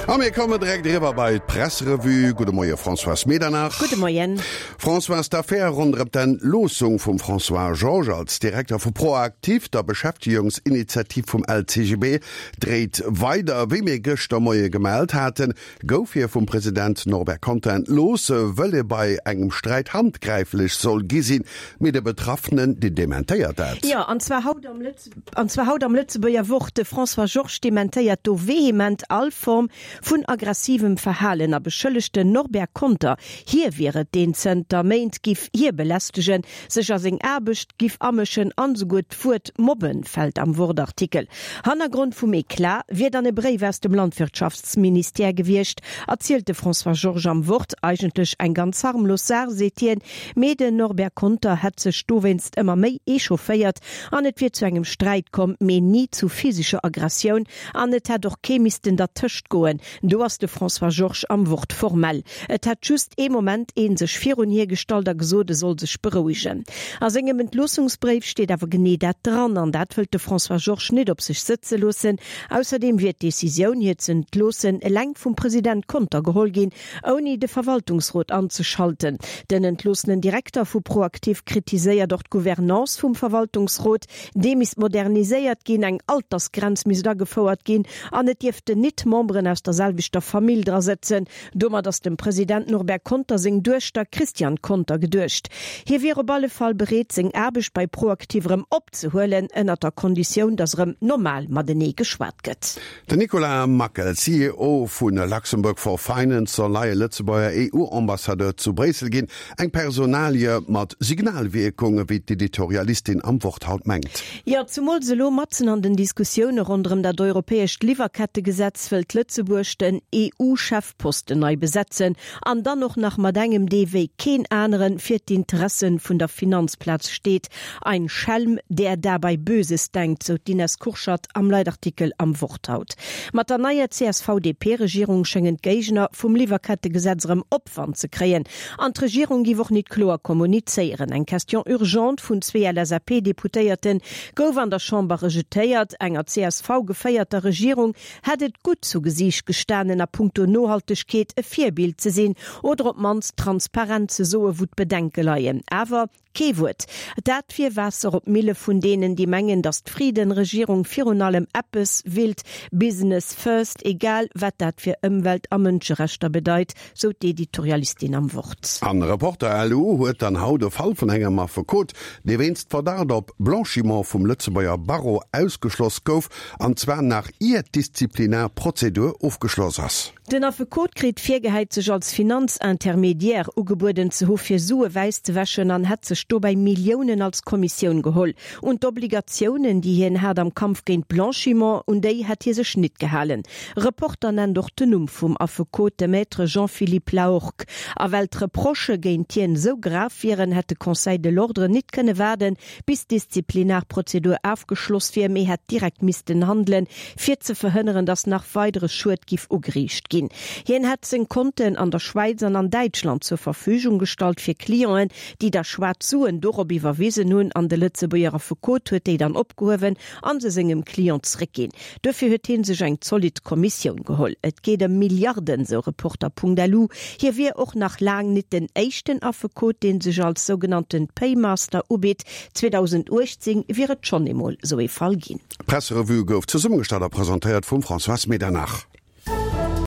A mir kommen direkt eriwwer bei d'Presserevue. Gudde Moie Françoise Medernach. Gudde Moien. Françoise, d'Affär ronderëm d'Entloossung vum François Georges als Direkter vu ProActif, der Beschäftegungsinitiativ vum LCGB, dréit weider. Wéi mir gëschter Moie gemellt haten, gouf hie vum President Norbert Conter entlooss, wëll e bei engem Sträit handgräiflech soll gi sinn. Mee de Betraffenen, deen dementéiert dat. Jo, an zwar haut am Lëtzebuerger. An zwar haut am Lëtzebuerger Wort. De François Georges dementéiert do vehement all Form vun aggressivem Verhalen a beschëllegt den Norbert Conter, hie wier et, deen zënter Méint giff hie belästegen, sech a seng Aarbecht giff amëschen an esouguer d'Wuert mobben fält am Wort-Artikel. Hannergrond vum Eclat wier dann e Bréif aus dem Landwirtschaftsministère gewiescht, erzielt de François Georges am Wort. Eigentlech eng ganz harmlos Saach, seet hien, mee den Norbert Conter hätt sech dowéinst ëmmer méi echaufféiert an et wier zu engem Sträit komm, mee ni zu physescher Aggressioun an et hätt och kee missten dertëscht goen. Do ass de François Georges am Wort formell. Et hätt just ee Moment ee sech virun hie gestallt a gesot, e soll sech berouegen. A sengem Entloossungsbréif steet awer genee dat dran an dat wëllt de François Georges nit op sech sëtze loossen. Ausserdeem wier d'Decisioun, hie ze entloossen, eleng vum President Conter geholl ginn, Ouni de Verwaltungsrot anzeschalten. Den entloossenen Direkter vu ProActif kritiséiert och d'Gouvernance vum Verwaltungsrot. Dee misst moderniséiert ginn, eng Altersgrenz misst agefouert ginn an et dierften nit Memberen aus der selwechter Famill dra sëtzen. Domat ass dem President Norbert Conter seng Duechter Christiane Conter geduecht. Hie wier op alle Fall bereet, seng Aarbecht bei ProActif erëm opzehuelen, ënnert der Konditioun, datt erëm normal matenee geschwat gëtt. Den Nicolas Mackel, CEO vu Luxembourg for Finance, soll neie Lëtzebuerger EU-Ambassadeur zu Bréissel ginn. Eng Personalie mat Signalwierkung, wéi d'Editorialistin am Wort haut mengt. Jo, zumools elo matzen an den Diskussioune ronderëm dat europäescht Liwwerkettegesetz wëllt Lëtzebuerg den EU-Chefposten nei besetzen an dann och nach mat engem, dee wéi keen anere fir d'Interesse vun der Finanzplaz steet. Ein Schelm, der dabei Böses denkt, sou d'Ines Kurschat am Leitartikel am Wort haut. Mat der neier CSV-DP-Regierung schéngen d'Géigner vum Liwwerkettegesetz erëm Opwand ze kréien. An d'Regierung giff och nit kloer kommunizéieren. Eng Question urgente vun zwee LSAP-Deputéierte gouf an der Chamber rejetéiert. Enger CSV-geféierter Regierung hätt et gutt zu Gesiicht gestanen, a puncto Nohaltegkeet e Virbild ze sinn oder op d'mannst transparent ze soe wou d'Bedenke leien. Awer Kee Wuert. Dat wier Waasser op d'Mille vun deenen, déi mengen, datt d'Frieden-Regierung virun allem eppes willt, Business first, egal wat dat fir Ëmwelt a Mënscherechter bedeit, sou d'Editorialistin am Wort. An Reporter LU huet dann haut e Fall vun engem Affekot, dee wéinst Verdacht op Blanchiment vum Lëtzebuerger Barreau ausgeschloss gouf, an zwar nach ier d'Disziplinarprozedur ofgeschloss ass. Den Affekot kritt virgehäit, sech als Finanzintermediaire ugebueden ze hu fir Sue wäiss ze wäschen an hätt sech dobäi Milliounen als Kommissioun geholl. Un d'Obligatiounen, déi hien hat am Kampf géint Blanchiment, un déi hätt hie sech nit gehalen. Reporter nennt och den Numm vum Affekot, de Maître Jean-Philippe Lahorgue. A well d'Reprochë géint hien esou grav wieren, hätt de Conseil de l'Ordre nit kënne waarden, bis d'Disziplinarprozedur afgeschloss wier, mee hätt direkt missten handelen, fir ze verhënneren, datt nach weidere Schued giff ugeriicht ginn. Hien hätt seng Konten an der Schwäiz an an Däitschland zur Verfügung gestallt fir Clienten, déi da schwaarz Suen dorop iwwerwisen hunn, an de Lëtzebuerger Affekot huet déi dann opgehuewen an se sengem Client zréckginn. Duerfir huet hie sech eng zolidd Kommissioun geholl. Et geet ëm Milliarden, sou Reporter.lu. Hie wier och nach laang nit den éischten Affekot, dee sech als sougenannte Paymaster ubitt. 2018 wier et schonn eemol sou ee Fall ginn. D'Presserevue gouf zesummegestallt a presentéiert vum Françoise Medernach.